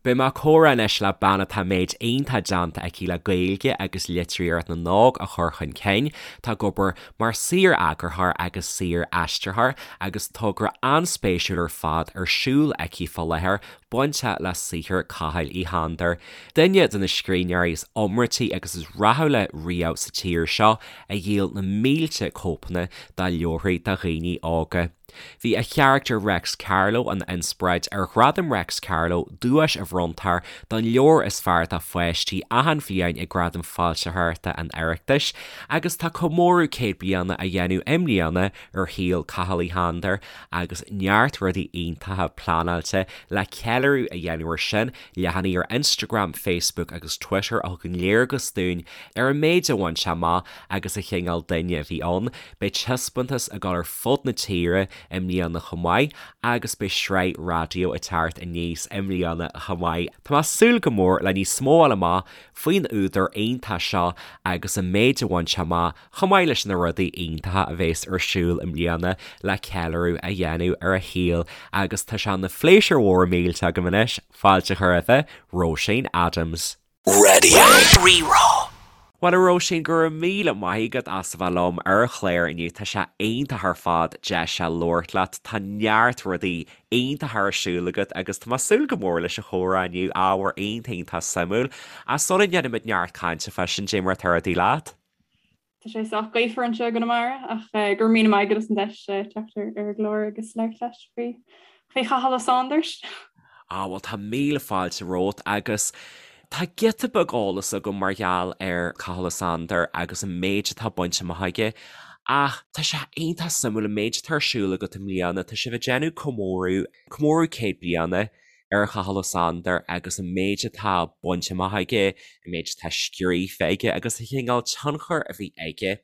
Beidh mé ag comhrá anois le bean atá méid iontach déanta aici le Gaeilge agus litríocht na n-óg a chur chun cinn. Tá ag obair mar saor-eagarthóir agus saor-aistritheoir agus togra an-spéisiúil ar fad ar siúl aici fá láthair bainteach le saothar Chathail Uí Shándair, duine de na scríbhneoirí is iomráití agus is rathúla riamh sa tír seo, a dhíol na mílte cóipeanna dá leabharthaí do dhaoine óga. Bhí a charachtar Reics Carló ina inspioráid ar Ghradam Reics Carló, duais a bhronntar don leabhar is fearr do pháistí achan bhliain ag Gradaim Foilsitheoireachta an Oireachtais, agus tá comóradh 100 bliana á dhéanamh i mbliana ar shaol Chathail Uí Shándair agus neart rudaí iontacha pleanáilte le ceiliúradh a dhéanamh air sin, leathanaigh ar Instagram, Facebook agus Twitter a thugann léargas dúinn ar an méid a bhain sé amach agus an chineál duine a bhí ann. Beidh taispeántas ag dul ar fud na tíre i mbliana chomh maith agus beidh sraith raidió ag teacht aníos i mbliana chomh maith. Tá mé ag súil go mór le níos mó a fháil amach faoin údar iontach seo agus an méid a bhain sé amach chomh maith leis na rudaí iontacha a bhéas ar siúl i mbliana le ceiliúradh a dhéanamh ar a shaol agus tá sé ina phléisiúr mhór millteach agam anois fáilte a chur roimhe, Róisín Adams. Raidió Rí-Rá. Bhuel a Róisín, go raibh míle maith agat as a bheith liom ar an chlár inniu, tá sé iontach ar fad deis a labhairt leat, tá neart rudaí iontacha ar siúl agat agus tá mé ag súil go mór leis an chomhrá inniu, ábhar iontach iontach suimiúil. Ach sula ndéanaimid neart cainte fá sin, cad é mar atá rudaí leat? Tá sé sách gaofar anseo i gConamara ach go raibh míle maith agat as an deis teacht ar an gclár agus labhairt leat faoi faoi Chathal Ó Sándair. Ah bhuel tá míle fáilte romhat agus tá giota beag eolas agam mar gheall ar Cathal Ó Sándair agus an méid atá bainte amach aige ach tá sé iontach suimiúil an méid atá ar siúl agat i mbliana, tá sibh ag déanamh comóradh, comóradh 100 bliana ar Chathal Ó Sándair agus an méid atá bainte amach aige, an méid atá scríofa aige agus an chineál tionchair a bhí aige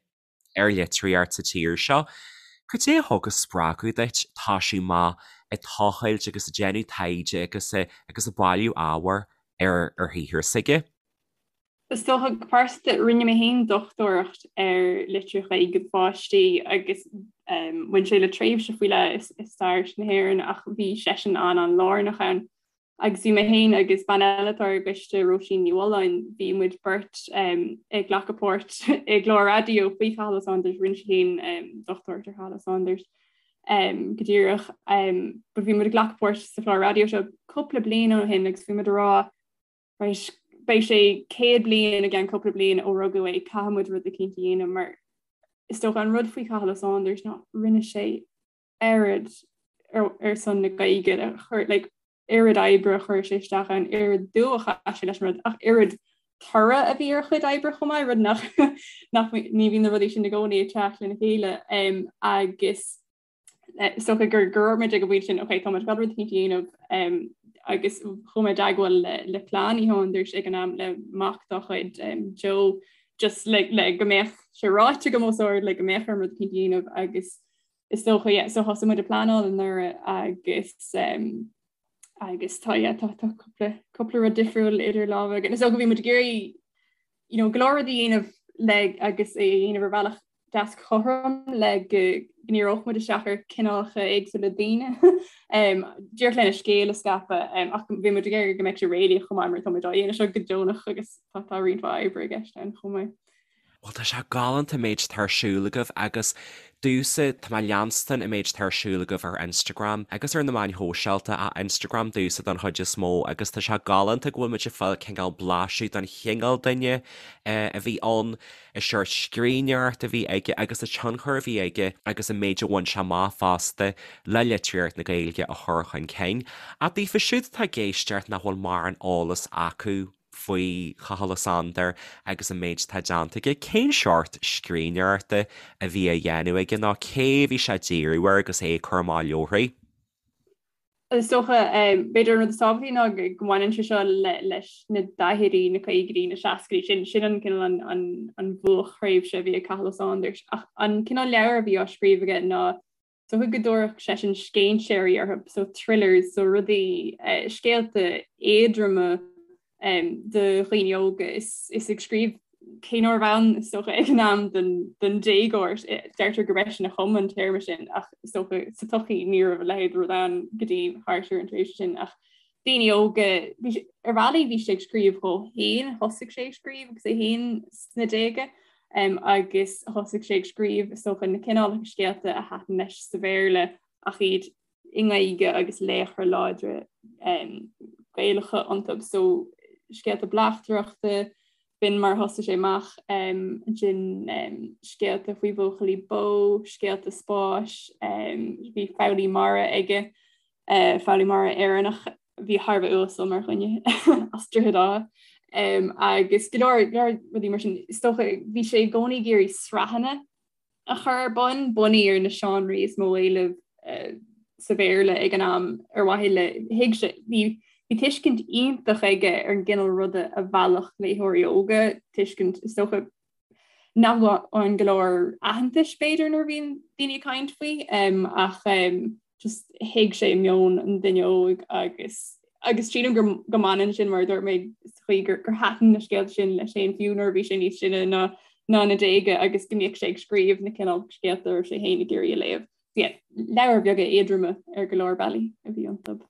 ar litríocht sa tír seo. Cad é a thug an spreagadh duit toisiú amach ag tochailt agus ag déanamh taighde agus agus ag bailiú ábhair ar ar shaothar s'aige? Is dócha, go pearsanta, rinne mé féin dochtúireacht ar litríocht Ghaeilge do pháistí agus bhain sé le tréimhse faoi leith i stair na hÉireann ach bhí seisean an-an-lárnach ann. Agus bhí mé féin agus bean eile atá ar an gcoiste, Róisín Ní Mhulláin, bhí muid beirt ag glacadh páirt i gclár raidió faoi Chathal Ó Sándair, rinne sí féin dochtúireacht ar Chathal Ó Sándair go díreach. But bhí muid ag glacadh páirt sa chlár raidió seo cúpla bliain ó shin agus bhí muid ag rá Right, beidh sé 100 bliain i gceann cúpla bliain ó rugadh é, caithfidh muid rud eicínt a dhéanamh mar is dócha an rud faoi Chathal Ó Sándair ná rinne sé oiread ar, ar son na Gaeilge a chur, like, oiread oibre a chuir sé isteach ann, oiread dua a chaith sé leis an rud, ach oiread toradh a bhí ar a chuid oibre chomh maith, rud nach, nach ní bhíonn na rudaí sin i gcónaí ag teacht lena chéile. Um, agus Is dócha gur go raibh muid ag an bpointe sin, ok, tá muid ag dul rud eicínt a dhéanamh agus chuaigh mé i dteagmháil le le clann Uí Shándair ag an am le mac dá chuid Joe just le le go mbeadh sé ráite agam os ard le go mbeadh orm rud eicínt a dhéanamh agus is dócha yeah, so thosaigh muid ag pleanáil anuraidh agus um, agus tá yeah, tá tá cúpla cúpla rud difriúil idir lámha againn. Is dócha bhí muid ag iarraidh you know, go leor rud a dhéanamh le agus é a dhéanamh ar bhealach deas cothrom le go ndíreodh muid isteach ar cineálacha éagsúla daoine díreach lena scéal a scaipeadh ach bhí muid ag iarraidh go mbeadh sé réalaíoch chomh maith mar tá muid á dhéanamh seo go deonach agus tá tá roinnt mhaith oibre i gceist ann chomh maith. Bhuel tá sé galánta an méid atá ar siúl agaibh agus domhsa, tá mé ag leanstan an méid atá ar siúl agaibh ar Instagram agus ar na meáin shóisialta, ach Instagram domhsa don chuid is mó agus tá sé galánta go bhfuil muid ag fáil cineál blaiseadh don chineál duine a bhí ann, an seort scríbhneoireacht a bhí aige agus an tionchar a bhí aige agus an méid a bhain sé amach fosta le litríocht na Gaeilge a chur chun cinn. Ach daofa siúd atá ag éisteacht nach bhfuil mórán eolas acu, faoi Chathal Ó Sándair agus an méid atá déanta aige, cén seort scríbhneoireachta a bhí á dhéanamh aige nó cé a bhí sé ag díriú air agus é ag cur amach leabharthaí? Is dócha, b'fhéidir an rud is tábhachtaí ná go mbaineann sé seo leis na daichidí, na caogaidí, na seascaidí, sin sin an cineál an an bhuaicthréimhse a bhí ag Cathal Ó Sándair. Ach an cineál leabhar a bhí á scríobh aige ná Is dócha go dtabharfadh seisean scéinséirí orthu, so thrillers, so rudaí, scéalta éadroma do dhaoine óga. Is ag scríobh cé nárbh ann is dócha ag an am don déagóir, deirtear gurb eisean a chum an téarma sin ach is dócha sa tsochaí ní raibh a leithéid de rud ann go dtí thart ar an tréimhse sin ach. daoine óga, bhí sé, ar bhealaí bhí sé ag scríobh dhó féin, thosaigh sé ag scríobh agus é féin sna déaga um, agus thosaigh sé ag scríobh is dócha na cineálacha scéalta a thaitin leis sa Bhéarla ach iad i nGaeilge agus laochra láidre um, Gaelacha iontu. So scéalta bleachtaireachta, b'in mar a thosaigh sé amach um, ansin um, scéalta faoi bhuachaillí bó, scéalta spáis, um, bhí foghlaí mara aige. Foghlaí mara Éireannach a bhí thar a bheith uasal mar dhuine as Droichead Átha agus go leor leor rudaí mar sin. Is dócha bhí sé i gcónaí ag iarraidh sraitheanna a chur ar bun, bunaithe ar na seánraí is mó éileamh sa Bhéarla ag an am ar mhaithe le thuig sé bhí bhí tuiscint iontach aige ar an gcineál ruda a mheallfadh léitheoirí óga, tuiscint is dócha nach bhfaigheann go leor aitheantais b'fhéidir nuair a bhíonn daoine ag caint faoi ach just thuig sé meon an duine óig agus agus sílim go go mbaineann sin mar a dúirt mé sa chaoi gur gur thaitin na scéalta sin leis féin fiú nuair a bhí sé níos sine ná ná na déaga agus go mbíodh sé ag scríobh na cineál scéalta a raibh sé féin ag iarraidh a léamh. Yeah, leabhair bheaga éadroma ar go leor bealaí a bhí iontu.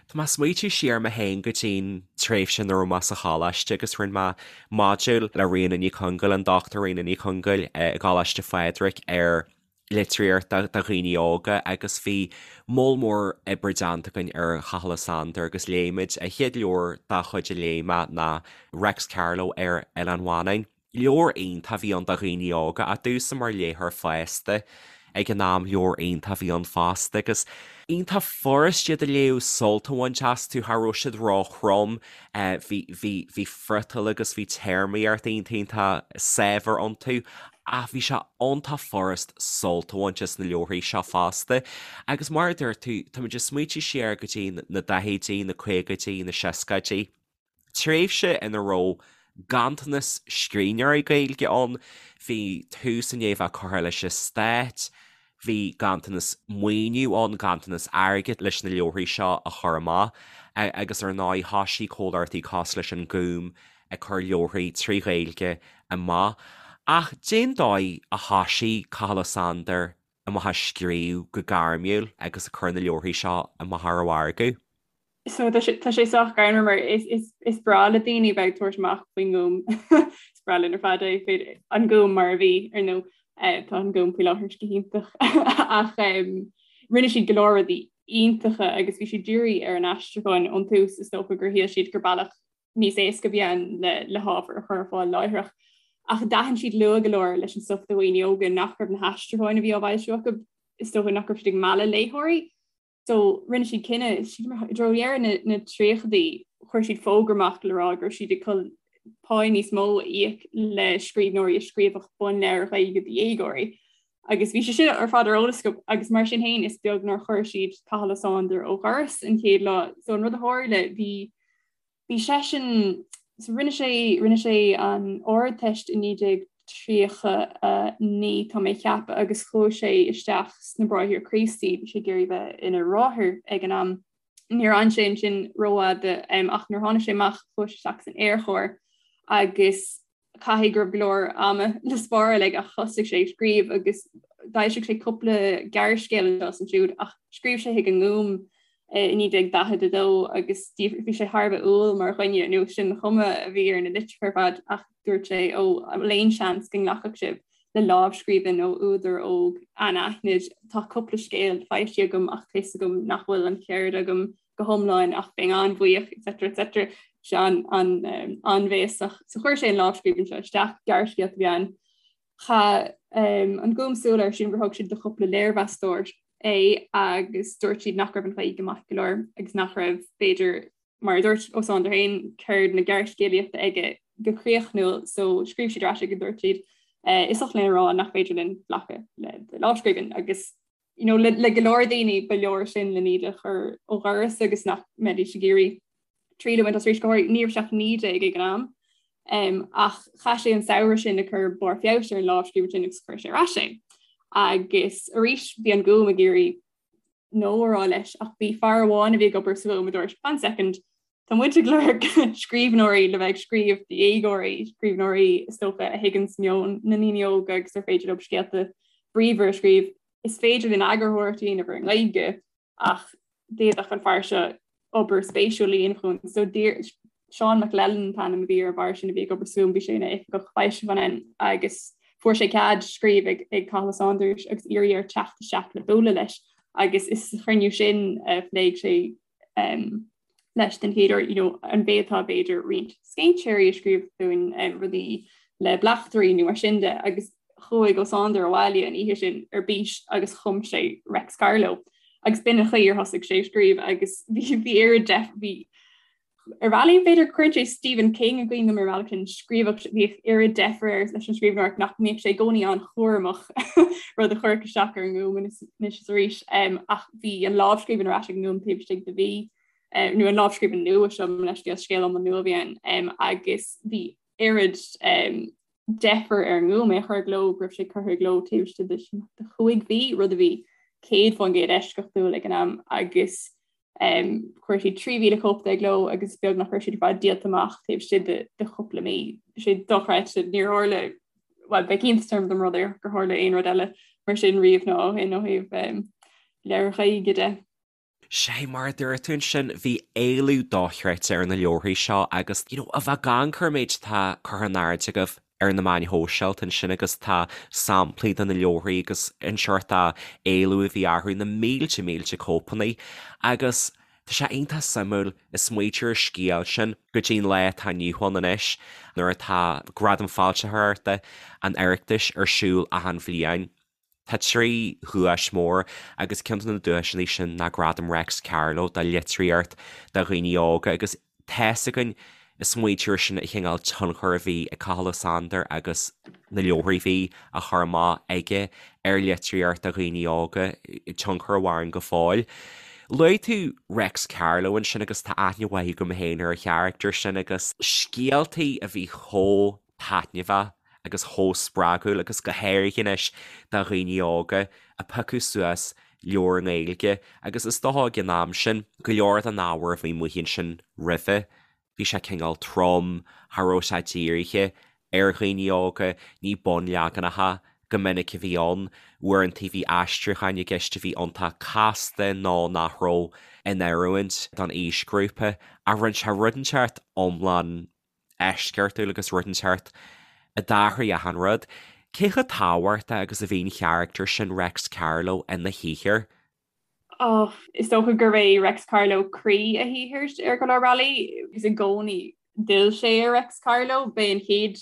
Tá mé ag smaoitiú siar mé féin go dtí'n tréimhse nuair a raibh mé sa choláiste agus rinne mé modúl le Ríona Ní Chonghaill, an Dr Ríona Ní Chonghaill i gColáiste Phádraig ar litríocht do dhaoine óga agus bhí moll mór oibre déanta againn ar Chathal Ó Sándair agus léigh muid, an chéad leabhar dá chuid a léigh mé ná Reics Carló ar Oileán Mhanann. Leabhar iontach a bhí ann do dhaoine óga, ach domhsa mar léitheoir fásta ag an am, leabhar iontach a bhí ann fosta agus iontach furast iad a léamh, sult a bhaint astu, cha raibh siad ró-throm, bhí, bhí, bhí friotal agus bhí téarmaíocht iontach, iontach saibhir iontu ach bhí sé iontach furast sult a bhaint as na leabharthaí seo fosta. Agus mar a dúirt tú, táimid ag smaoitiú siar go dtí na daichidí, na caogaidí, na seascaidí. tréimhse ina raibh ganntanas scríbhneoirí Gaeilge ann, bhí tús i ndiaidh a bheith curtha leis an stát, bhí ganntanas maoiniú ann, ganntanas airgid leis na leabharthaí seo a chur amach agus ar ndóigh thoisigh comhlachtaí cosúil leis an Gúm ag cur leabharthaí trí Ghaeilge amach. Ach cén dóigh a thoisigh Cathal Ó Sándair amach ag scríobh go gairmiúil agus ag cur na leabharthaí seo amach ar an mhargadh? So tá sé tá sé sách greannmhar mar is is is breá le daoine bheith ag tabhairt amach faoin nGúm. Is breá linn ar fad é féidir an Gúm mar a bhí ar ndóigh eh, tá an Gúm faoi láthair go hiontach ach em, rinne siad go leor rudaí iontacha agus bhí siad dírithe ar an aistriúchán ón tús is dócha gur shíl siad gur bealach níos éasca a bhí ann le le hábhar a chur ar fáil láithreach. Ach d'aithin siad luath go leor leis an stuif do dhaoine óga nach raibh na haistriúcháin a bhí á bhfoilsiú acu is dócha nach raibh siad ag mealladh léitheoirí. So rinne siad cinneadh, sílim i dtreo dheireadh na dtríochaidí, chuir siad fógra amach le rá go raibh siad ag dul pá níos mó a íoc le scríbhneoirí a scríobhadh bunleabhair Ghaeilge do dhéagóirí. Agus bhí sé sin ar fad ar eolas acu agus mar sin féin is beag nár chuir siad Cathal Ó Sándair ó dhoras an chéad lá. So an rud a tharla bhí Bhí seisean, so rinne sé, rinne sé an Ardteist i 1939 tá mé ag ceapadh agus chuaigh sé isteach sna Bráithre Críostaí, bhí sé ag iarraidh bheith ina bhráthair ag an am. Níor fhan sé ansin rófhada ach nuair a tháinig sé amach chuaigh sé isteach san Aerchór agus caithfidh go raibh go leor ama le spáráil aige ach thosaigh sé ag scríobh agus d'fhoilsigh sé cúpla gearrscéal anseo is ansiúd ach scríobh sé chuig an nGúm i 1942 agus bhí sé thar a bheith umhal mar dhuine nó sin an chuma a bhí ar na litreacha ar fad ach dúirt sé ó an bhfuil aon seans go nglacfadh sibh le lámhscríbhinn ó údar óg anaithnid tá cúpla scéal foilsithe agam ach tá fhios agam nach bhfuil an cheird agam go hiomlán ach bheinn an-bhuíoch etc etc sé an-bhéasach. So chuir sé an lámhscríbhinn seo isteach, gearrscéalta a bhí ann. Chaith an Gúm súil air sílim gur thug siad do chúpla léirmheastóir é agus dúirt siad nach raibh an Ghaeilge maith go leor agus nach raibh b'fhéidir mar a dúirt Ó Sándair féin ceird na gearrscéalaíochta aige go críochnúil so scríobh siad ar ais agus dúirt siad is oth linn a rá nach féidir linn glacadh le do lámhscríbhinn agus you know, le, le go leor daoine ba leor sin le iad a chur ó dhoras agus nach mbeidís ag iarraidh triail a bhaint as arís go háirithe ní raibh sé ach 19 ag an am. Um, ach chaith sé an samhradh sin ag cur barr feabhais ar an lámhscríbhinn sin agus chuir sé ar ais é. Agus arís bhí an Gúm ag iarraidh no a rá leis ach bhí fear amháin a bhí ag obair sa Ghúm a dúirt one second Tá muid ag lorg scríbhneoirí le bheith ag scríobh do dhéagóirí, scríbhneoirí is dócha a thuigeanns meon na ndaoine óga agus ar féidir leo scéalta bríomhar a scríobh. Is féidir linn eagarthóireacht a dhéanamh ar an nGaeilge ach d'fhéadfadh an fear seo. obair spéisiúil a dhéanamh chugainn. So d'iarr Seán McLellan an t-ainm a bhí ar an bhfear sin a bhí ag obair sa Ghúm, bhí sé ina oifigeach foilseacháin ann agus fuair sé cead scríobh ag ag Cathal Ó Sándair agus iarraidh air teacht isteach le bualadh leis agus is sa chruinniú sin a phléigh sé um, leis den chéad uair, you know, an bhféadfá b'fhéidir roinnt scéinséirí a scríobh dúinn um, rudaí le bleachtairí nó mar sin de agus chuaigh Ó Sándair abhaile an oíche sin ar bís agus chum sé Reics Carló. Agus b'in an chaoi ar thosaigh sé ag scríobh agus bhí bhí oiread def bhí ar bhealaí b'fhéidir cuireann sé Stephen King i gcuimhne dom ar bhealach sin scríobhadh bhíodh oiread deifir air leis an scríbhneoireacht nach mbíodh sé i gcónaí an-chúramach rud a chuirfeadh isteach ar an nGúm anois is arís um, ach bhí an lámhscríbhinn ar ais ag an nGúm taobh istigh de mhí um, nó an lámhscríbhinn nua seo leithscéal scéal iomlán nua a bhí ann um, agus bhí oiread um, deifir ar an nGúm é a chur i gcló go raibh sé curtha i gcló taobh istigh de chúig mhí, rud a bhí 100% eisceachtúil ag an am agus um, chuir siad 3,000 cóip de i gcló agus beag nach raibh siad ar fad díolta amach taobh istigh de, de chúpla mí. Sé dochreidte níor tharla well bheadh iontas orm dá mba rud é gur tharla aon rud eile mar sin riamh nó ó shin ó thaobh um, leabhair Ghaeilge de. Sé mar a dúirt tú ansin, bhí éileamh dochreidte ar na leabharthaí seo agus, you know, a bheith ag amharc ar an méid atá curtha in airde agaibh ar na meáin shóisialta ansin agus tá samplaí de na leabharthaí agus an seort éileamh a bhí orthu, na mílte mílte cóipeanna agus tá sé iontach suimiúil ag smaoitiú ar an scéal sin go dtí an lá atá inniu ann anois nuair atá Gradaim Foilsitheoireachta an Oireachtais ar siúl achan bhliain. Tá 3 dhuais mhór agus ceann de na duaiseanna sin ná Gradam Reics Carló do litríocht do dhaoine óga agus tá's againn ag smaoitiú air sin an chineál tionchar a bhí ag Cathal Ó Sándair agus na leabharthaí a bhí á chur amach aige ar litríocht do dhaoine óga, tionchar a mhaireann go fóill. Luaigh tú Reics Carló ansin agus tá aithne mhaith agam féin ar an charachtar sin agus scéaltaí a bhí chomh taitneamhach agus chomh spreagúil agus go háirithe anois do dhaoine óga a piocadh suas leabhar i nGaeilge agus is dócha ag an am sin, go leor den ábhar a bhí amuigh ansin roimhe, bhí sé cineál trom, cha raibh sé dírithe ar dhaoine óga, ní bunleaganacha go minic a bhí ann, uaireanta bhí aistriúcháin i gceist a bhí iontach casta nó nach raibh in oiriúint don aoisghrúpa ach rinne sé rud inteacht iomlán eisceachtúil agus rud inteacht a d'athraigh achan rud. Cé chomh tábhachtach agus a bhí an charachtar sin Reics Carló ina shaothar? Oh, is dócha gurb é Reics Carló croí a shaothair ar go leor bealaí agus i gcónaí d'fhill sé ar Reics Carló. B'é an chéad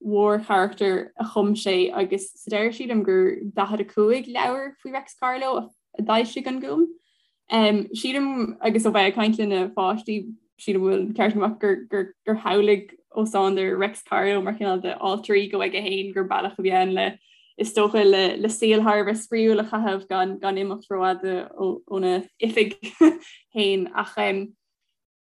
mhórcharachtar a chum sé agus sa deireadh sílim gur 45 leabhar faoi Reics Carló a d'fhoilsigh an Gúm. Sílim agus ó bheith ag caint le na pháistí sílim go bhfuil ceart agam gur gur gur shamhlaigh Ó Sándair Reics Carló mar chineál de alter ego aige féin gur bealach a bhí ann le is dócha le le saol thar a bheith spraíúil a chaitheamh gan gan imeacht rófhada óna oifig féin ach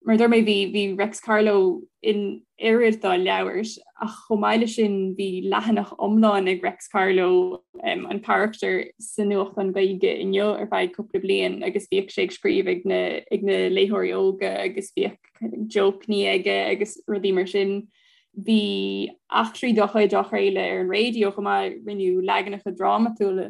Mar a dúirt mé, bhí bhí Reics Carló in oiread dá leabhair, ach chomh maith leis sin bhí leathanach iomlán ag Reics Carló, an carachtar, sa nuachtán Gaeilge Inniu ar feadh cúpla bliain agus bhíodh sé ag scríobh ag na ag na léitheoirí óga agus bhíodh jócanna aige agus rudaí mar sin. Bhí eachtraí dá chuid á chraoladh ar an raidió chomh maith, rinneadh leaganacha drámatúla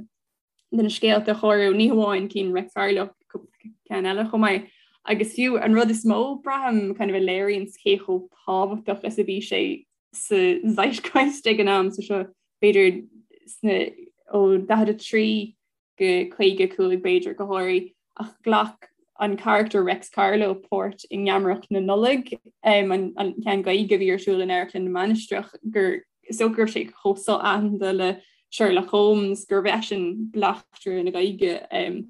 de na scéalta a chóiriú, ní hamháin cinn Reics Carló, cúpla ceann eile chomh maith. Agus fiú an rud is mó, braithim, kind of a léiríonn cé chomh tábhachtach is a bhí sé sa zeitgeist ag an am, so seo b'fhéidir sna ó 43 go 55 b'fhéidir go háirithe, ach ghlac an carachtar Reics Carló páirt i nGeamaireacht na Nollag, an ceann Gaeilge a bhí ar siúl in Amharclann na Mainistreach, gur is dócha go raibh sé chomh so-aitheanta le Sherlock Holmes gurbh eisean bleachtaire na Gaeilge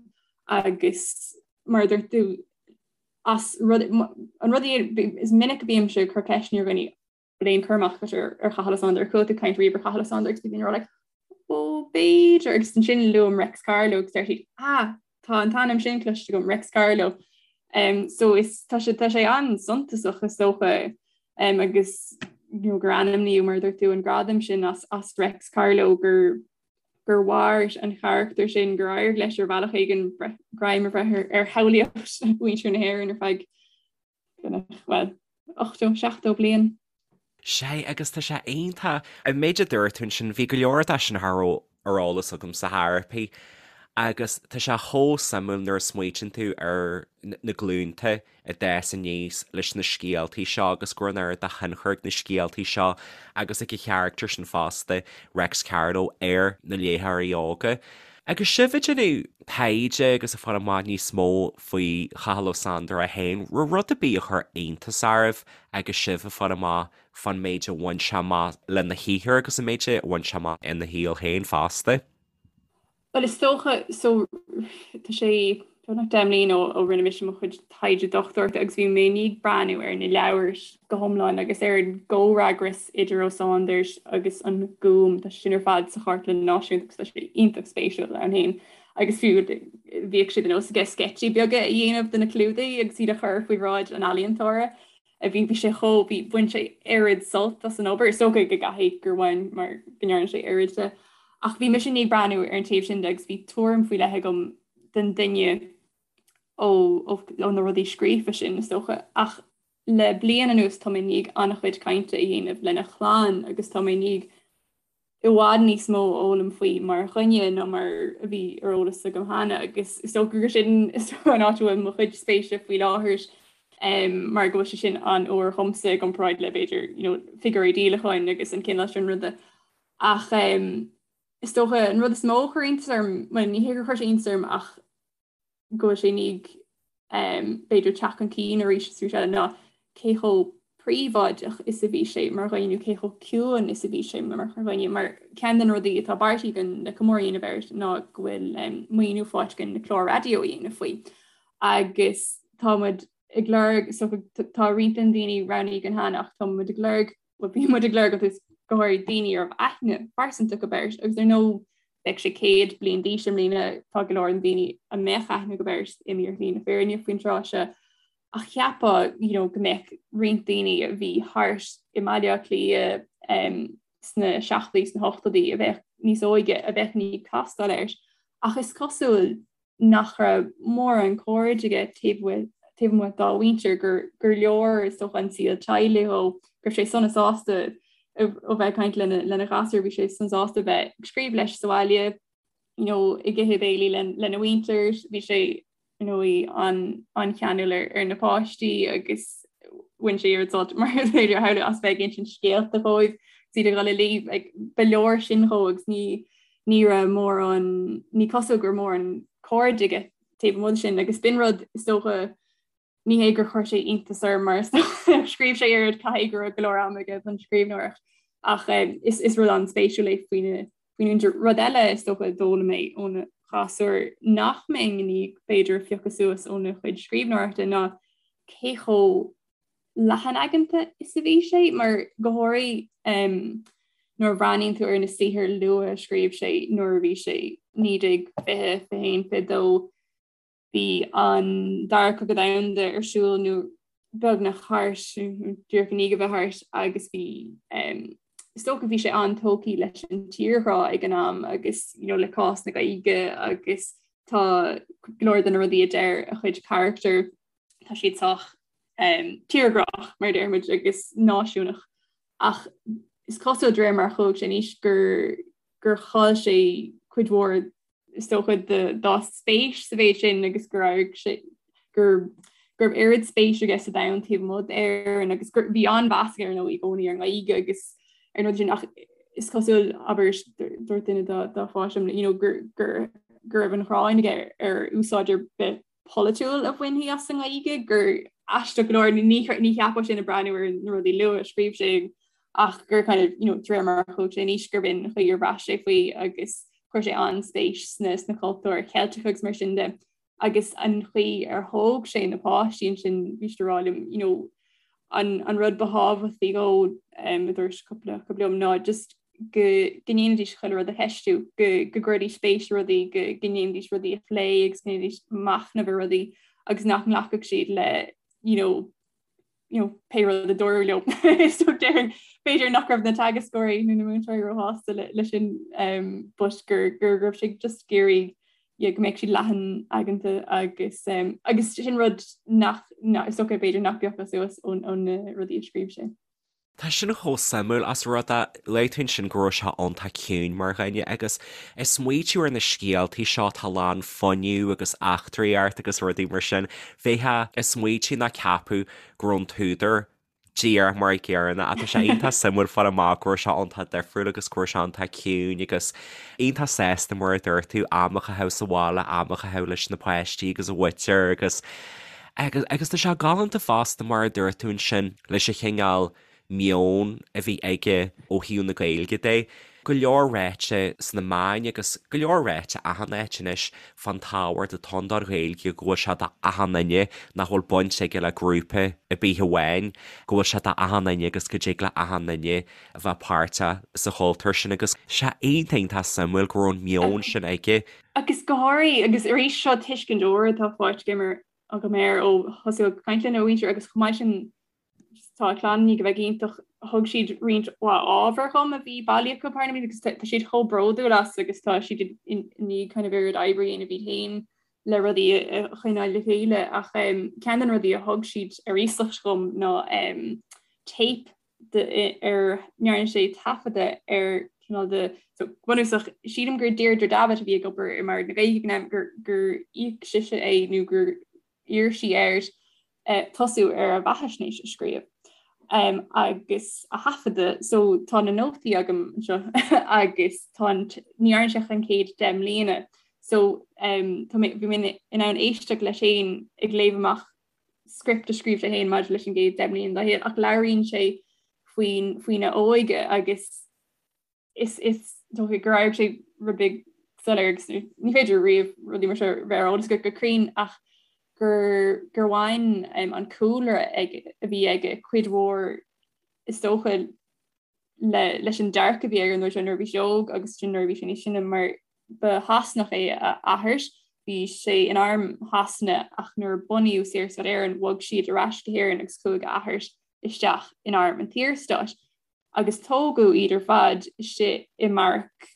agus mar a dúirt tú as rud an rud is minic a bímse ag cur ceisteanna ar dhaoine bhfuil aon chur amach agat ar Chathal Ó Sándair chuala tú caint riamh ar Chathal Ó Sándair agus bíonn like ó b'fhéidir agus ansin luaim Reics Carló agus deir siad ah tá an t-ainm sin cloiste agam Reics Carló um, so is tá sé tá sé an-suntasach is dócha um, agus you know, gur ainmníodh mar a dúirt tú an gradam sin as, as Reics Carló gur gur mhair an charachtar sin gur éirigh leis ar bhealach éigin greim a bhreith ar, ar shamhlaíocht mhuintir na hÉireann ar feadh well, 80, 70 bliain. Sé, agus tá sé iontach. An méid a dúirt tú ansin, bhí go leor de sin cha raibh ar eolas agamsa ar chor ar bith. Agus tá sé chomh suimiúil nuair a smaoitíonn tú ar na glúnta a d'fhás aníos leis na scéaltaí seo agus go raibh an oiread de thionchar ag na scéaltaí seo agus ag an charachtar sin fosta, Reics Carló, ar na léitheoirí óga. Agus sibh ag déanamh taighde agus ag fáil amach níos mó faoi Chathal Ó Sándair é féin, raibh rud ar bith a chuir iontas oraibh agus sibh ag fáil amach fán méid a bhain sé amach lena shaothar agus an méid a bhain sé amach ina shaol féin fosta? Bhuel, is dócha, so, tá sé beagnach 10 mbliana ó rinne mise mo chuid taighde dochtúireachta agus bhí mé i ndiaidh breathnú ar na leabhair go hiomlán agus ar an gcomhfhreagras idir Ó Sándair agus an Gúm, tá sé sin ar fad sa Chartlann Náisiúnta agus tá sé iontach spéisiúil ann féin. Agus fiú bhíodh sé de nós aige sceitsí beaga a dhéanamh de na clúdaigh agus iad a chur faoi bhráid an ealaíontóra. a bhí, bhí sé chomh, bhí, bhain sé oiread sult as an obair, is dócha go gcaithfidh gur bhain mar go ndearna sé oiread de. Ach bhí mise i ndiaidh breathnú ar an taobh sin de agus bhí tuairim faoi leith agam den duine ó, ó, ó na rudaí scríofa sin, is dócha. Ach le bliain anuas tá mé i ndiaidh an-chuid cainte a dhéanamh lena chlann agus tá mé i ndiaidh i bhfad níos mó a fhoghlaim faoi mar dhuine ná mar a bhí ar eolas agam cheana agus is dócha gur sin an áit a bhfuil mo chuid spéise faoi láthair mar go bhfuil sé sin an-úr dhomsa i gcomparáid le b'fhéidir you know, figiúirí díolacháin agus an cineál sin ruda. Ach um, is dócha an rud is mó a chuir iontas orm, well, ní hé gur chuir sé iontas orm ach go bhfuil sé i ndiaidh b'fhéidir teacht chun cinn arís is arís eile ná cé chomh príobháideach is a bhí sé mar dhuine nó cé chomh ciúin is a bhí sé mar dhuine. Mar ceann de na rudaí atá beartaithe againn le comóradh a dhéanamh air ná go bhfuil maoiniú faighte againn le clár raidió a dhéanamh faoi. Agus tá muid ag lorg, so tá roinnt den daoine roghnaithe againn cheana ach tá muid ag lorg Bhuel, bhí muid ag lorg agus go háirid daoine a raibh aithne phearsanta acu air agus ar ndóigh beidh sé 100 bliain d'aois i mbliana, tá go leor den daoine a mbeadh aithne acu air imithe ar shlí na fírinne faoin tráth seo. Ach cheapfá you know, go mbeadh roinnt daoine a bhí thart i mBaile Átha Cliath um, sna seachtóidí sna hochtóidí a bheadh níos óige a bheadh i ndiaidh castáil air. Ach is cosúil nach raibh mórán cairde aige taobh taobh amuigh dá mhuintir, gur gur leor is dócha an saol teaghlaigh dhó, go raibh sé sona sásta ó bheith ag caint lena lena ghasúir, bhí sé sona sásta bheith ag scríobh leis sa bhaile, you know, ag ithe béilí lena mhuintir, bhí sé you know, an an-cheanúil ar ar na páistí agus bhain sé oiread sult mar is féidir a shamhlú as bheith ag insint scéalta dhóibh, is iad ag dul a luí, like, ba leor sin dhó agus ní ní raibh mórán, ní cosúil go raibh mórán cairde aige taobh amuigh de sin agus b'in rud is dócha ní hé gur chuir sé iontas orm mar is dócha scríobh sé oiread caithfidh go raibh go leor ama aige don scríbhneoireacht ach eh, is, is rud an-spéisiúil é faoina faoina mhuintir. Rud eile is dócha a d'fhoghlaim mé óna ghasúir nach mbeinn i ndiaidh b'fhéidir a phiocadh suas óna chuid scríbhneoireachta ná cé chomh leathanaigeanta is a bhí sé, mar go háirithe nuair a bhreathnaíonn tú ar na saothair luatha a scríobh sé nuair a bhí sé 1920, 21, 22, bhí an Dara Cogadh Domhanda ar siúl nó beagnach thart, díreach i ndiaidh a bheith thart agus bhí is dócha bhí sé an-tógtha leis an tírghrá ag an am agus you know, le cás na Gaeilge agus tá go leor de na rudaí a deir a chuid carachtar tá siad sách um, tírghrách mar a déarfaimid agus náisiúnach ach is cosúil de réir mar a chuaigh sé in aois gur gur chaill sé cuid mhór is dócha dá spéis sa mhéid sin agus gur éirigh sé gur go raibh oiread spéis aige sa domhan taobh amuigh d'Éirinn agus gur bhí an-mheas aige ar ndóigh i gcónaí ar an nGaeilge agus ar an rud sin ach is cosúil abair dúirt duine dá dá pháiste you know, gur gur go raibh an ghráin aige ar úsáid ar bith polaitiúil a bhainfí as an nGaeilge, gur aisteach go leor, ní cheapfá sin ag breathnú ar na rudaí luath a scríobh sé ach gur kind of, you know, de réir mar a chuaigh sé in aois gurb in an chaoi ar bhraith sé faoi agus chuir sé an-spéis sna, sna cultúir Cheilteacha agus mar sin de. Agus an chaoi ar thóg sé na páistí ansin, bhí siad ag rá liom, you know, an, an rud ba thábhachtaí dhó, um, a dúirt cúpla acu liom, ná just go ndéanfaidís chuile rud a cheistiú, go gcuirfidís spéis i rudaí, go ndéanfaidís rudaí a phlé agus go ndéanfaidís machnamh ar rudaí agus nach nglacfadh siad le you know, you know, pé rud a dúradh leo. So déarfainn b'fhéidir nach raibh na teagascóirí nó na múinteoirí róshásta le, le sin um, but gur, gur raibh sé just ag iarraidh yeah, go mbeadh siad leathanaigeanta agus um, agus sin rud nach, nach, is dócha b'fhéidir nach bpiocfá suas ón, ón na rudaí a scríobh sé. Tá sin chomh suimiúil as rud é, luaigh tú ansin go raibh sé iontach ciúin mar dhuine agus ag smaoitiú ar na scéaltaí seo atá lán fuinneamh agus eachtraíocht agus rudaí mar sin, bheifeá ag smaoitiú nó ceapadh go raibh an t-údar díreach mar an gcéanna ach tá sé iontach suimiúil fáil amach go raibh sé iontach difriúil agus go raibh sé iontach ciúin agus iontach sásta mar a dúirt tú am a chaitheamh sa bhaile, am a chaitheamh leis na páistí agus a mhuintir agus agus agus tá sé galánta fosta mar a dúirt tú ansin leis an chineál meon a bhí aige ó thaobh na Gaeilge de. Go leor ráite sna meáin agus go leor ráite achan áit anois fán tábhacht atá ann don Ghaeilge, go bhfuil sé do achan duine, nach bhfuil baint aige le grúpa ar bith amháin, go bhfuil sé do achan duine agus go dtig le achan duine a bheith páirteach sa chultúr sin agus sé iontach iontach suimiúil go raibh an meon sin aige. Agus go háirithe, agus arís seo tuiscint úr atá faighte agam air ó thosú ag caint lena mhuintir agus chomh maith sin Tá a chlann i ndiaidh a bheith iontach, thug siad roinnt mhaith ábhar dhom a bhí bailithe acu thar na blianta agus tá siad chomh bródúil as agus tá siad i ndiaidh kind of oiread oibre a dhéanamh iad féin le rudaí a choinneáil le chéile ach ceann de na rudaí a thug siad ar iasacht dhom ná téip ar ndearna sé taifeadadh ar cineál de so bunúsach sílim gur Deirdre Davitt a bhí ag obair i mBord na Gaeilge ag an am gur gur íoc sise é nó gur iarr sí air tosú ar a bheathaisnéis a scríobh agus a thaifeadadh so tá na nótaí agam anseo agus tá an ní dhearna sé ach an chéad 10 mbliana so tá mé bhí mé in ann éisteacht leis féin ag léamh amach script a scríobh sé féin maidir leis an gcéad 10 mbliana dá shaol ach labhraíonn sé faoin faoina óige agus is is dócha gur éirigh sé rud beag soiléir agus ní féidir riamh rudaí mar seo bheith ar eolas agat go cruinn ach gur gur bhain an cúlra ag a bhí aige cuid mhór is dócha le leis an dearcadh a bhí air nuair nuair a bhí sé óg agus sin nuair a bhí sé níos sine mar ba Shasanach é a athair bhí sé in arm Shasana ach nuair a bunaíodh Saorstát Éireann bhog siad ar ais go hÉirinn agus chuaigh a athair isteach in arm an tSaorstáit. agus tógadh iad ar fad istigh i mbeairic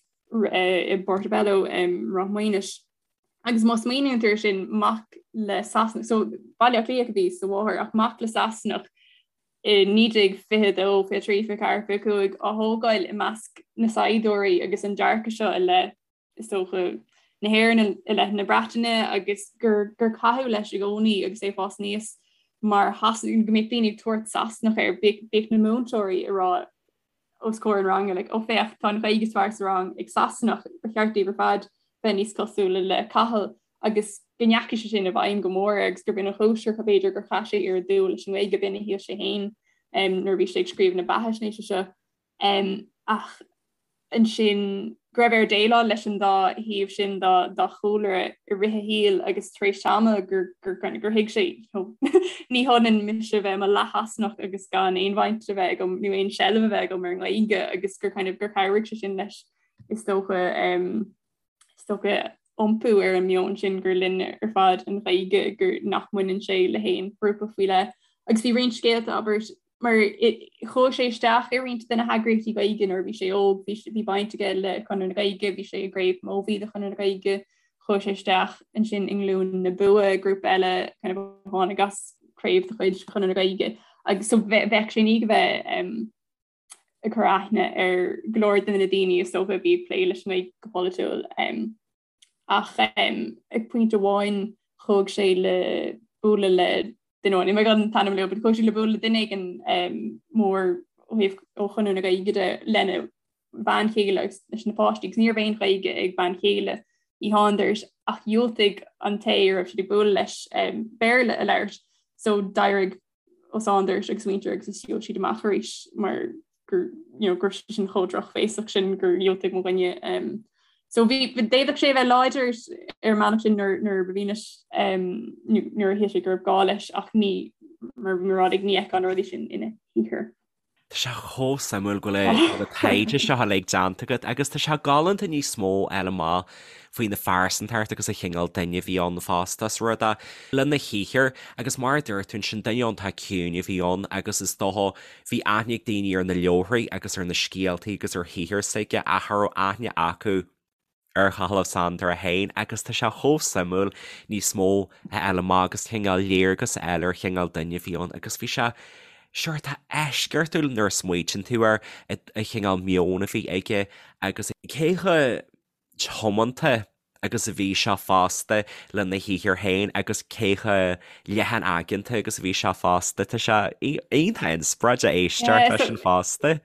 i bPortobello i Ráth Maonais. Agus má smaoiníonn tú air sin, mac le Sasanach, so Baile Átha Cliath a bhí sa mháthair, ach mac le Sasanach i 1922, 23, 24, 25 á thógáil i measc na saighdiúirí agus an dearcadh seo i leith is dócha, na hÉireann i leith na Breataine agus gur gur caitheadh leis i gcónaí agus é ag fás aníos mar Shasanach, go mbeadh daoine ag tabhairt Sasanach air, bhíodh na múinteoirí ag rá os comhair an ranga like, ó féach, tá an Ghaeilge is fearr sa rang ag Sasanach, ba cheart daoibh ar fad bheith níos cosúla le Cathal agus go ndeachaigh sé sin i bhfeidhm go mór air agus gurb in an chúis gur b'fhéidir gur chaith sé oiread dúil leis an nGaeilge, b'in a shíl sé féin nuair a bhí sé ag scríobh na beathaisnéise seo. Ach ansin go raibh air déileáil leis an dá thaobh sin dá chúlra i rith a shaoil agus tar éis tamaill gur gur gur thuig sé ní hionann mise bheith i mo leath-Shasanach agus gan aon bhaint a bheith agam nó aon seilbh a bheith agam ar an nGaeilge agus gur kind of gur chabhraigh sé sin leis is dócha is dócha iompú ar an meon sin gur linn ar fad an Ghaeilge, gur nach mbaineann sé le haon ghrúpa faoi leith. Agus bhí roinnt scéalta, abair, mar chuaigh sé isteach i roinnt de na heagraíochtaí Gaeilge nuair a bhí sé óg, bhí, bhí baint aige le Conradh na Gaeilge, bhí sé i gCraobh Mobhí de Chonradh na Gaeilge, chuaigh sé isteach ansin i nGlúin na Bua, grúpa eile kind of a tháinig as craobh de chuid Chonradh na Gaeilge. Agus so bheadh sé i ndiaidh a bheith um, ag cur aithne ar go leor de na daoine is dócha a bhí ag plé leis an nGaeilge go polaitiúil. Ach ag pointe amháin chuaigh sé le bualadh le duine amháin, níl mé gan an t-ainm a lua, but chuaigh sé le bualadh le duine éigin mór ó thaobh ó Chonradh na Gaeilge de lena bhean chéile agus leis na páistí agus ní raibh aon Ghaeilge ag bean chéile Uí Shándair ach dhiúltaigh an té a raibh siad ag bualadh leis Béarla a labhairt so d'éirigh Ó Sándair agus a mhuintir agus is shiúil siad amach arís mar gur you know, go raibh sé sin chomh drochbhéasach sin gur dhiúltaigh mo dhuine. Um, so bhí d'fhéadfadh sé a bheith láidir ar an mbealach sin nuair nuair ba mhian leis um, nuair a shíl sé go raibh gá leis ach ní mar mar ní fheicfeá na rudaí sin ina shaothar. Tá sé chomh suimiúil go bhfuil an taighde seo uilig déanta agat agus tá sé galánta níos mó a fháil amach faoina phearsantacht agus an chineál duine a bhí ann fosta is rud é lena shaothar agus mar a dúirt tú ansin duine iontach ciúin a bhí ann agus is dócha bhí aithne ag daoine ar na leabharthaí agus ar na scéaltaí agus ar shaothar s'aige ach cha raibh aithne acu ar Chathal Ó Sándair é féin agus tá sé chomh suimiúil níos mó a fháil amach agus cineál léargas a fháil ar chineál duine a bhí ann agus bhí sé. Sure, tá eisceachtúil nuair a smaoitíonn tú ar an chineál meoin a bhí aige agus cé chomh tiomanta agus a bhí sé fosta lena shaothar féin agus cé chomh leathan aigeanta agus a bhí sé fosta. Tá sé iontach inspioráideach éisteacht leis sin fosta.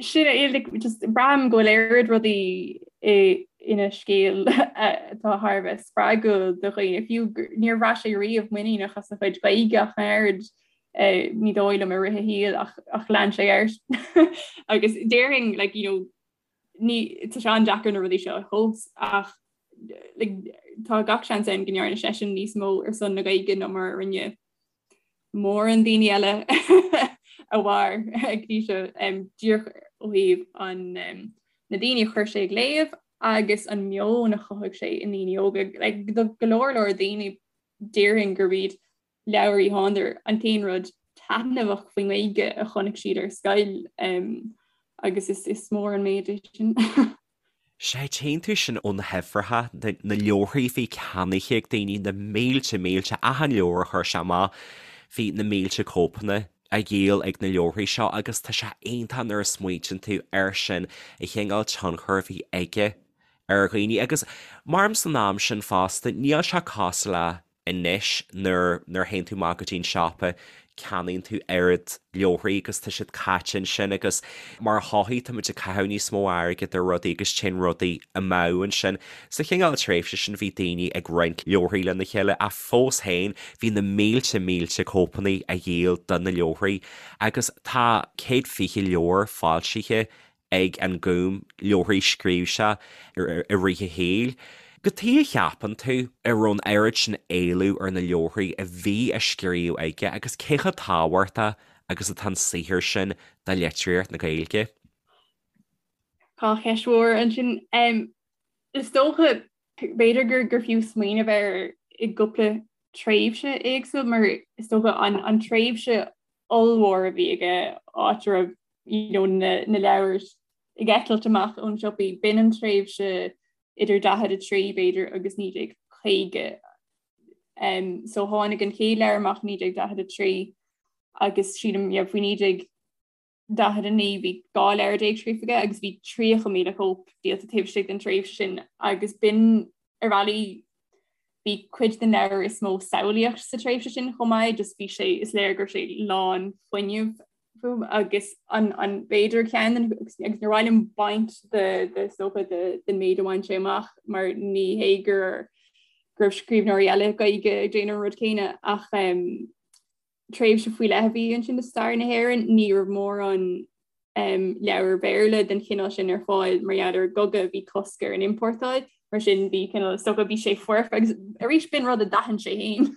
Sin é, like, just braithim go bhfuil oiread rudaí ina scéal atá thar a bheith spreagúil do dhaoine, fiú níor bhraith sé riamh muiníneach as a chuid Gaeilge ach an oiread, ní dóigh liom i rith a shaoil ach ach lean sé air. Agus déarfainn, like, you know, ní, tá sé an-deacair na rudaí seo a thomhas ach like, tá gach seans ann go ndearna seisean níos mó ar son na Gaeilge ná mar a rinne mórán daoine eile a mhair go dtí seo díreach ó thaobh an na daoine a chuir sé ag léamh agus an meon a chothaigh sé i ndaoine óga. Like, do go leor leor daoine déarfainn gurb iad leabhair Uí Shándair an t-aon rud taitneamhach faoin nGaeilge a chonaic siad ar scoil agus is mór an méid é sin. Sea, tchíonn tú sin ó na huimhreacha, na leabharthaí a bhí ceannaithe ag daoine, na mílte, mílte, achan leabhar a chuir sé amach, bhí na mílte cóipeanna á dhíol ag na leabharthaí seo agus tá sé iontach nuair a smaointíonn tú air sin, an chineál tionchair a bhí aige ar dhaoine. Agus maram san am sin fosta, níl sé cosúil le Anois nuair nuair a théann tú amach go dtí an siopa ceannaíonn tú oiread leabharthaí agus tá siad caite ansin agus mar shochaí tá muid ag caitheamh níos mó airgid ar rudaí agus téann rudaí amú ansin. Sa chineál tréimhse sin bhí daoine ag roinnt leabharthaí lena chéile ach fós féin bhí na mílte mílte cóipeanna á dhíol de na leabharthaí agus tá 120 leabhar foilsithe ag an Gúm, leabharthaí a scríobh sé i rith a shaoil. Cad chuige a cheapann tú a raibh an oiread sin éileamh ar na leabharthaí a bhí á scríobh aige agus cé chomh tábhachtach agus atá an saothar sin do litríocht na Gaeilge? Tá ceist mhór ansin. Is dócha, b'fhéidir gur gur fiú smaoineamh air i gcúpla tréimhse éagsúil mar is dócha an an tréimhse ollmhór a bhí aige áit a raibh you know, na, na leabhair ag eitilt amach ón siopaí, b'in an tréimhse idir 43 b'fhéidir agus 1950. Um, so tháinig an chéad leabhar amach 1943 agus sílim yeah, faoi 1949 bhí 12 leabhar scríofa aige agus bhí 30,000 cóip díolta taobh istigh den tréimhse sin agus b'in ar bhealaí bhí cuid den leabhar is mó samhlaíocht sa tréimhse sin chomh maith, just bhí sé, is léir go raibh sé lán fuinnimh agus an an b'fhéidir ceann den agus níor mhaith liom baint de de is dócha de den méid a bhain sé amach mar ní hé gur go raibh scríbhneoirí eile Gaeilge ag déanamh an rud céanna ach um, tréimhse faoi leith a bhí ansin i stair na hÉireann, ní raibh mórán leabhar Béarla den chineál sin ar fáil mar gheall ar an gcogadh, bhí cosc ar an iompórtáil, mar sin bhí cineál, is dócha, bhí sé foirfe agus arís b'in rud a d'aithin sé féin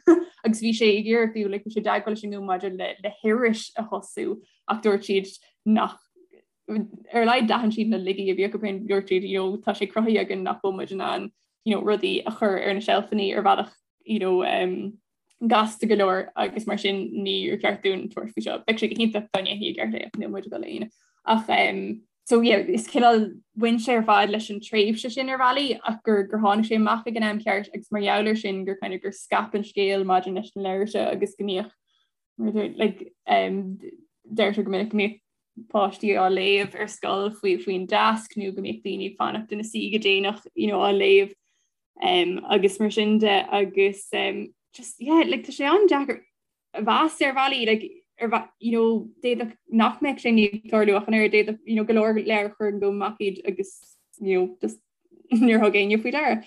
agus bhí sé ag iarraidh fiú, like, bhí sé i dteagmháil leis an nGúm maidir le le hiris a thosú ach dúirt siad nach ar a laghad d'aithin siad na laigí a bhí acu féin, dúirt siad, you know, tá sé cruthaithe againn nach bhfuil muid in ann, you know, rudaí a chur ar na seilfeanna ar bhealach, you know, um, gasta go leor agus mar sin níor cheart dúinn tabhairt faoi seo. Bheadh sé go hiontach dá ndéanfaí i gceart é ach níl muid ag dul a dhéanamh. Ach um, so yeah, is cineál bhain sé ar fad leis an tréimhse sin ar bhealaí ach gur gur tháinig sé amach ag an am ceart agus mar gheall air sin gur kind of gur scaip an scéal maidir leis na leabhair seo agus go mbíodh like, um, deirtear go minic go mbíodh páistí á léamh ar scoil faoi faoin deasc nó go mbíodh daoine ag fanacht ina suí go déanach you know, á léamh um, agus mar sin de agus um, just yeah, like, tá sé an-deacair a mheas ar bhealaí like, ar you know, d'fhéadfadh nach mbeadh sé ag tarlú ach an oiread d'fhéadfadh you know, go leor leabhar chuir an Gúm amach iad agus you know, just níor thug éinne faoi deara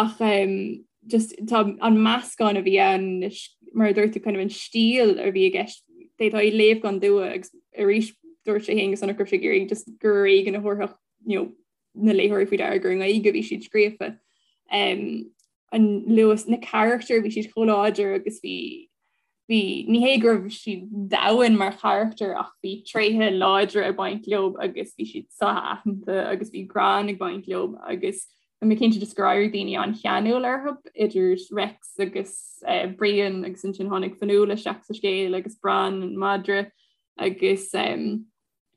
ach um, just tá an meascán a bhí ann mar a dúirt tú kind of an stíl a bhí i gceist d'fhéadfá é a léamh gan dua agus arís dúirt sé féin go sonrach go raibh sé ag iarraidh just gur ar éigean a thabharfadh you know, na léitheoirí faoi deara gur i nGaeilge a bhí siad scríofa. Um, an luas na carachtair bhí siad chomh láidir agus bhí bhí ní hé go raibh siad domhain mar charachtair ach bhí tréithe láidre ag baint leo agus bhí siad so-aitheanta agus bhí greann ag baint leo agus Tá mé cinnte just gur éirigh daoine an-cheanúil orthu idir Rex agus uh, Brian agus ansin tháinig Fionnuala isteach sa scéal agus Bran an madra agus um,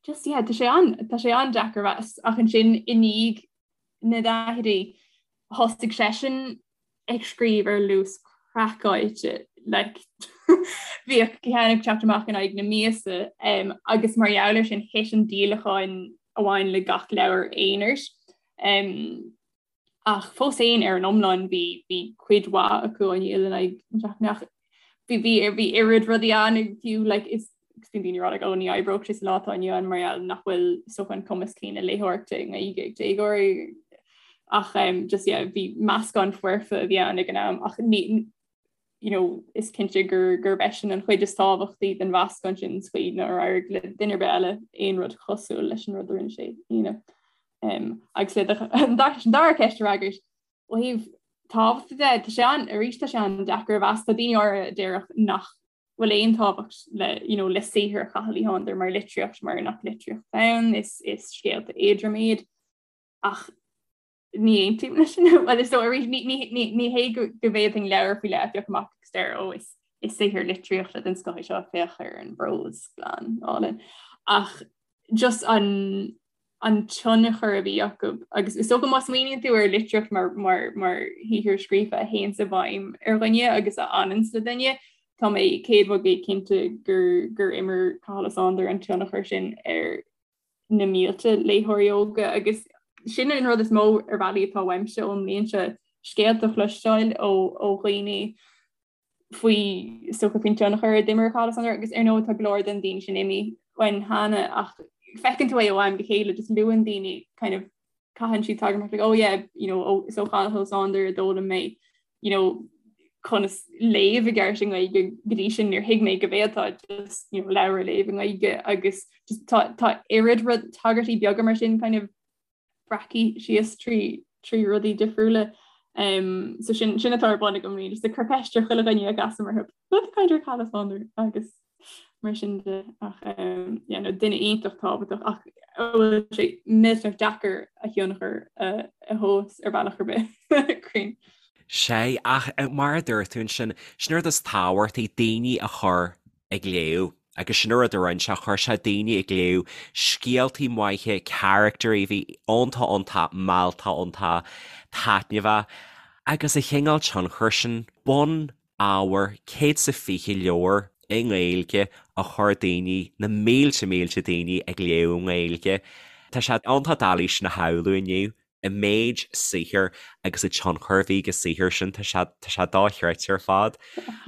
just yeah, tá sé an tá sé an-deacair a mheas ach ansin i ndiaidh na daichidí thosaigh seisean ag scríobh ar luas craiceáilte. Like bhíodh ceann ag teacht amach in aghaidh na míosa um, agus mar gheall air sin thit an díolachán a bhain le gach leabhar aonair. Um, ach fós féin ar an iomlán bhí bhí cuid mhaith acu á ndíol in aghaidh na seachtaine ach bhí bhí bhí oiread rudaí ann fiú like, is agus bíonn daoine ag rá like, oh, ní oibreodh sé sa lá atá inniu ann mar gheall nach bhfuil is dócha an cumas céanna léitheoireachta i nGaeilge ag déagóirí ach um, just yeah, bhí meascán foirfe a bhí ann ag an am ach ní you know, is cinnte gur gurb eisean an chuid is tábhachtaí den mheascán sin sa chaoi nár éirigh le duine ar bith eile aon rud cosúil leis an rud a rinne sé a dhéanamh. Um, agus le an dara ceist a fhreagairt ó thaobh tábhachta de, tá sé an arís tá sé an-deacair a mheas tá daoine áirithe a déarfadh nach bhfuil aon tábhacht le you know, le saothar Chathail Uí Shándair mar litríocht mar nach litríocht ann is, is scéalta éadrom iad ach ní aontaím leis sin well is dóigh arís ní, ní, ní, ní hé go, go bhféadfainn leabhar faoi leith a phiocadh amach agus deir ó is, is saothar litríochta den scoth é seo féach ar an bprós glan álainn ach just an an tionchar a bhí acu agus is dócha má smaoiníonn tú ar litríocht mar, mar, mar shaothar scríofa a théanns i bhfeidhm ar dhuine agus a fhananns le duine, tá mé 100% cinnte gur, gur imir Cathal Ó Sándair an tionchar sin ar na mílte léitheoirí óga agus sin an rud is mó ar bhealaí atá uaimse ón mbliain seo, scéalta a chloisteáil ó, ó dhaoine faoi is dócha faoin tionchar a d'imir Cathal Ó Sándair agus ar ndóigh tá go leor den daoine sin imithe uainn cheana ach feiceann tú é ó am go chéile just luann daoine kind of caitheann siad tagairt like oh yeah you know oh, is ó Chathal Ó Sándair a d'fhoghlaim mé you know conas léamh i gceart i nGaeilge go dtí sin níor thuig mé go bhféadfá just you know leabhar a léamh i nGaeilge agus just tá tá oiread rud tagairtí beaga mar sin kind of breactha síos trí trí rudaí difriúla. Um, so sin sin atá ar bun agam really, just ag cur ceist ar chuile dhuine a gcasaim orthu. Rud kind ar Cathal Ó Sándair agus mar sin de ach um, yeah, no, duine iontach tábhachtach ach bhfuil sé millteanach deacair a thionchar a, a thomhas ar bhealach ar bith cruinn. Sé, ach eh, mar a dúirt tú ansin, sin rud is tábhachtaí daoine a chur ag léamh. Agus sin an rud a rinne sé, chuir sé daoine ag léamh scéaltaí maithe, caractairí a bhí iontach iontach mealltach iontach taitneamhach. Agus an chineál tionchair sin, bun ábhair 120 leabhar i nGaeilge a chuir daoine, na mílte mílte daoine ag léamh i nGaeilge. Tá sé iontach doiligh sin a shamhlú inniu. an méid saothair agus an tionchar a bhí ag an saothar sin, tá sé, tá sé dochreidte ar fad.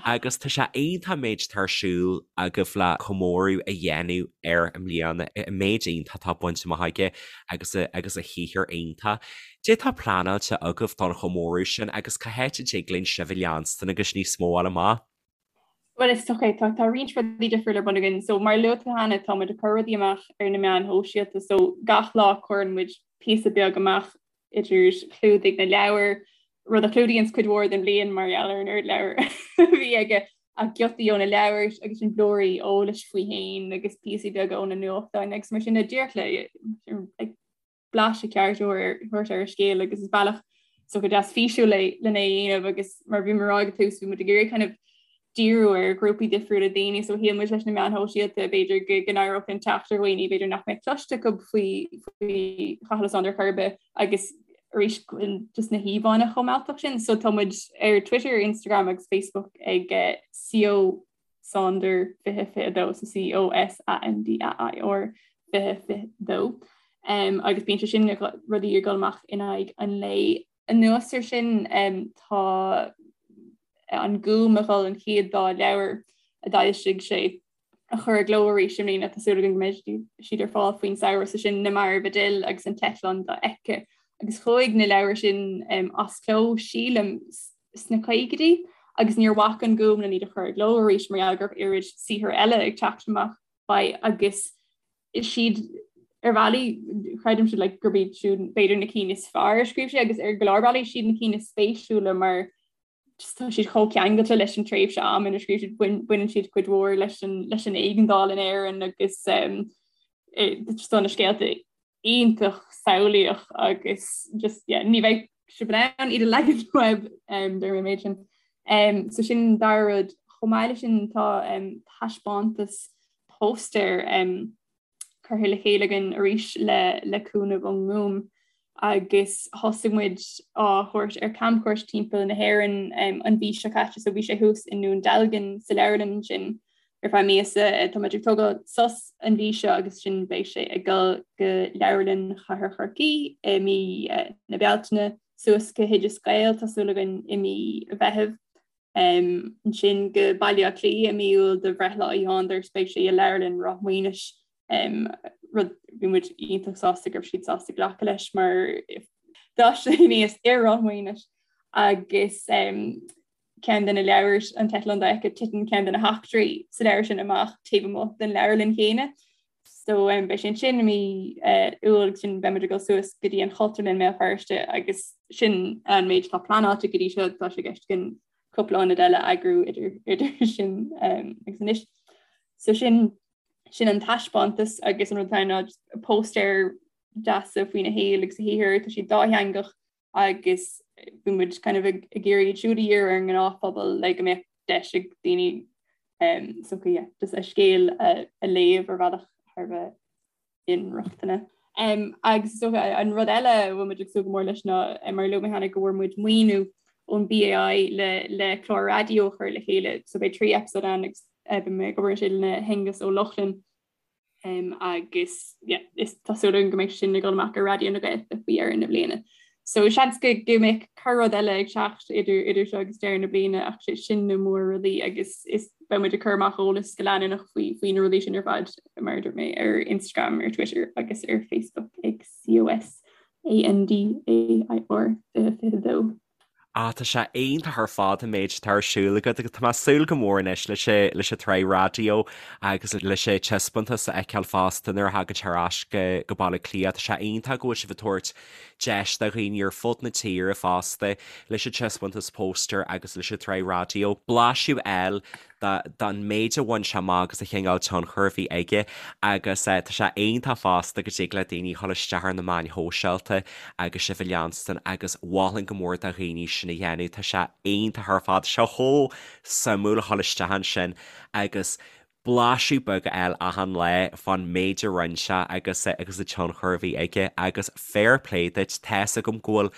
Agus tá sé iontach an méid atá ar siúl agaibh le comóradh a dhéanamh air i mbliana, an méid iontach atá bainte amach aige agus a, agus a shaothar iontach. Cad é atá pleanáilte agaibh don chomóradh sin agus cá háit a dtig linn sibh a leanstan agus níos mó a fháil amach? Bhuel is dócha tá tá roinnt rudaí difriúla ar bun againn. So mar a luaigh tú cheana tá muid ag cur rudaí amach ar na meáin shóisialta. So gach lá cuireann muid píosa beag amach idir chlúdaigh na leabhar, rud a chlúdaíonns cuid mhór den bhliain mar gheall ar an oiread leabhar a bhí aige, ach giotaí ó na leabhair agus sin blúirí eolais faoi fhéin agus píosaí beaga ó na nuachtáin agus mar sin de díreach le like, blaiseadh ceart a thabhairt ar an scéal agus is bealach is dócha deas físiúil é lena é a dhéanamh agus mar bhí mé ag rá ag an tús bhí muid ag iarraidh kind of díriú ar ghrúpaí difriúla daoine so shíl muid leis na meáin shóisialta b'fhéidir go go n-éireodh linn teacht ar dhaoine b'fhéidir nach mbeadh cloiste acu faoi faoi Chathal Ó Sándair chor ar bith agus arís just na híomhánna chomh mealltach sin so tá muid ar Twitter, Instagram agus Facebook ag eh, CO Sandair 2022 so C O S A N D A I R 2022 um, agus bíonn sé sin rudaí ag dul amach in aghaidh an lae. Anuas ar sin um, tá an Gúm ag dul an chéad dá leabhar a d'fhoilsigh sé a chur i gcló arís i mbliana tá súil againn go mbeidh siad ar fáil faoin samhradh so sin Na Mairbh a D'fhill agus An tEitleán Dofheicthe agus chuaigh na leabhair sin um, as cló sílim sna caogaidí agus níor bhac an Gúm len iad a chur i gcló arís mar gheall go raibh oiread saothar eile ag teacht amach faoi agus is iad ar bhealaí creidimse like, gurb iad siúd b'fhéidir na cinn is fearr a scríobh sé agus ar go leor bealaí siad na cinn is spéisiúla mar just tá siad chomh ceangailte leis an tréimhse ama ina scríobh siad baineann siad cuid mhór leis an leis an éigeandáil in Éirinn agus um, just tá na scéalta iontach samhlaíoch agus just yeah, ní bheidh sibh in ann iad a leagan uaibh um, deir mé méid sin. Um, so sin an dara rud chomh maith leis sin tá um, taispeántas póstaer um, curtha le chéile againn arís le, le cúnamh ón nGúm. Agus thosaigh muid á thabhairt ar camchuairt timpeall na hÉireann an mhí seo caite, so bhí sé thuas i nDún Dealgan sa leabharlann ansin ar feadh míosa. Tá muid ag tógáil sos an mhí seo agus ansin beidh sé ag dul go Leabharlann Chathair Chorcaí i mí na Bealtaine, suas go hOideas Gael, tá súil againn i mí Mheithimh. Ansin go Baile Átha Cliath i mí Iúil do bhreithlá Uí Shándair is beidh sé i Leabharlann Ráth Maonais, rud bhí muid iontach sásta go raibh siad sásta glacadh leis mar d'fhás sé aníos i Ráth Maonais agus ceann de na leabhair An tEitleán Dofheicthe titeann ceann de na heachtraí sa leabhar sin amach taobh amuigh den leabharlann chéanna. So um, beidh sé ansin i mí uh, Iúil agus ansin beidh muid ag dul suas go dtí an Chultúrlann i mBéal Feirste agus sin an méid atá pleanáilte go dtí seo tá sé i gceist againn cúpla ionad eile a eagrú idir, idir sin um, agus anois. So sin sin an taispeántas agus an rud atá ná póstaeir deasa faoina shaol agus a shaothar, tá siad dátheangach agus bhí muid kind of ag iarraidh iad siúd a dhíriú ar an ngnáthphobal le go mbeadh deis ag daoine um, so yeah, just a scéal a, a léamh ar bhealach thar bheith inrochtana. Um, agus so, an rud eile a bhfuil muid ag súil go mór leis ná mar a luaigh mé cheana go bhfuair muid maoiniú ón BAI le, le clár raidió a chur le chéile, so beidh 3 episode ann agus uh, beidh mé ag obair ansin le hAonghus Ó Lochlainn Um, agus yeah, is tá súil againn go mbeidh sin ag dul amach ar Raidió na Gaeltachta faoi dheireadh na bliana. So seans go go mbeidh corr-rud eile ag teacht idir idir seo agus deireadh na bliana ach sé sin na mór-rudaí agus is beidh muid ag cur amach eolas go leanúnach faoi faoi na rudaí sin ar fad mar a dúirt mé ar Instagram, ar Twitter agus ar Facebook ag COS ANDAIR 2022. Ah, tá sé iontach ar fad an méid atá ar siúl agat agus tá mé ag súil go mór anois leis an leis an tsraith raidió agus leis an taispeántas a fheiceáil fosta nuair a thagann sé ar ais go go Baile Átha Cliath. Tá sé iontach go bhfuil sibh ag tabhairt deis do dhaoine ar fud na tíre fosta leis an taispeántas póstaer agus leis an tsraith raidió blaiseadh a fháil don méid a bhain sé amach agus an chineál tionchair a bhí aige agus tá sé iontach fosta go dtig le daoine dhul isteach ar na meáin shóisialta agus sibh a leanstan agus mholfainn go mór do dhaoine sin a dhéanamh, tá sé iontach ar fad, tá sé chomh suimiúil a dhul isteach ansin agus blaiseadh beag a fháil achan lá fán méid a rinne sé agus agus an tionchar a bhí aige agus fair play duit, tá's agam go bhfuil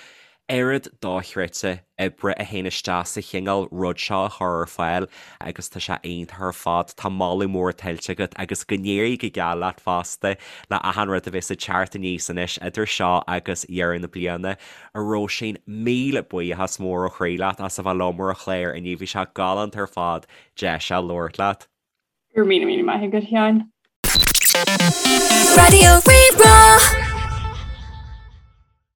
oiread dochreidte oibre a théann isteach sa chineál rud seo a chur ar fáil agus tá sé iontach ar fad. Tá moladh mór tuillte agat agus go n-éirí go geal leat fosta le achan rud a bheas ag teacht aníos anois idir seo agus deireadh na bliana. A Róisín, míle buíochas mór ó chroí leat as a bheith liom ar an chlár inniu, bhí sé galánta ar fad deis a labhairt leat. Go raibh míle míle maith agat, a Sheáin. Raidió Rí-Rá.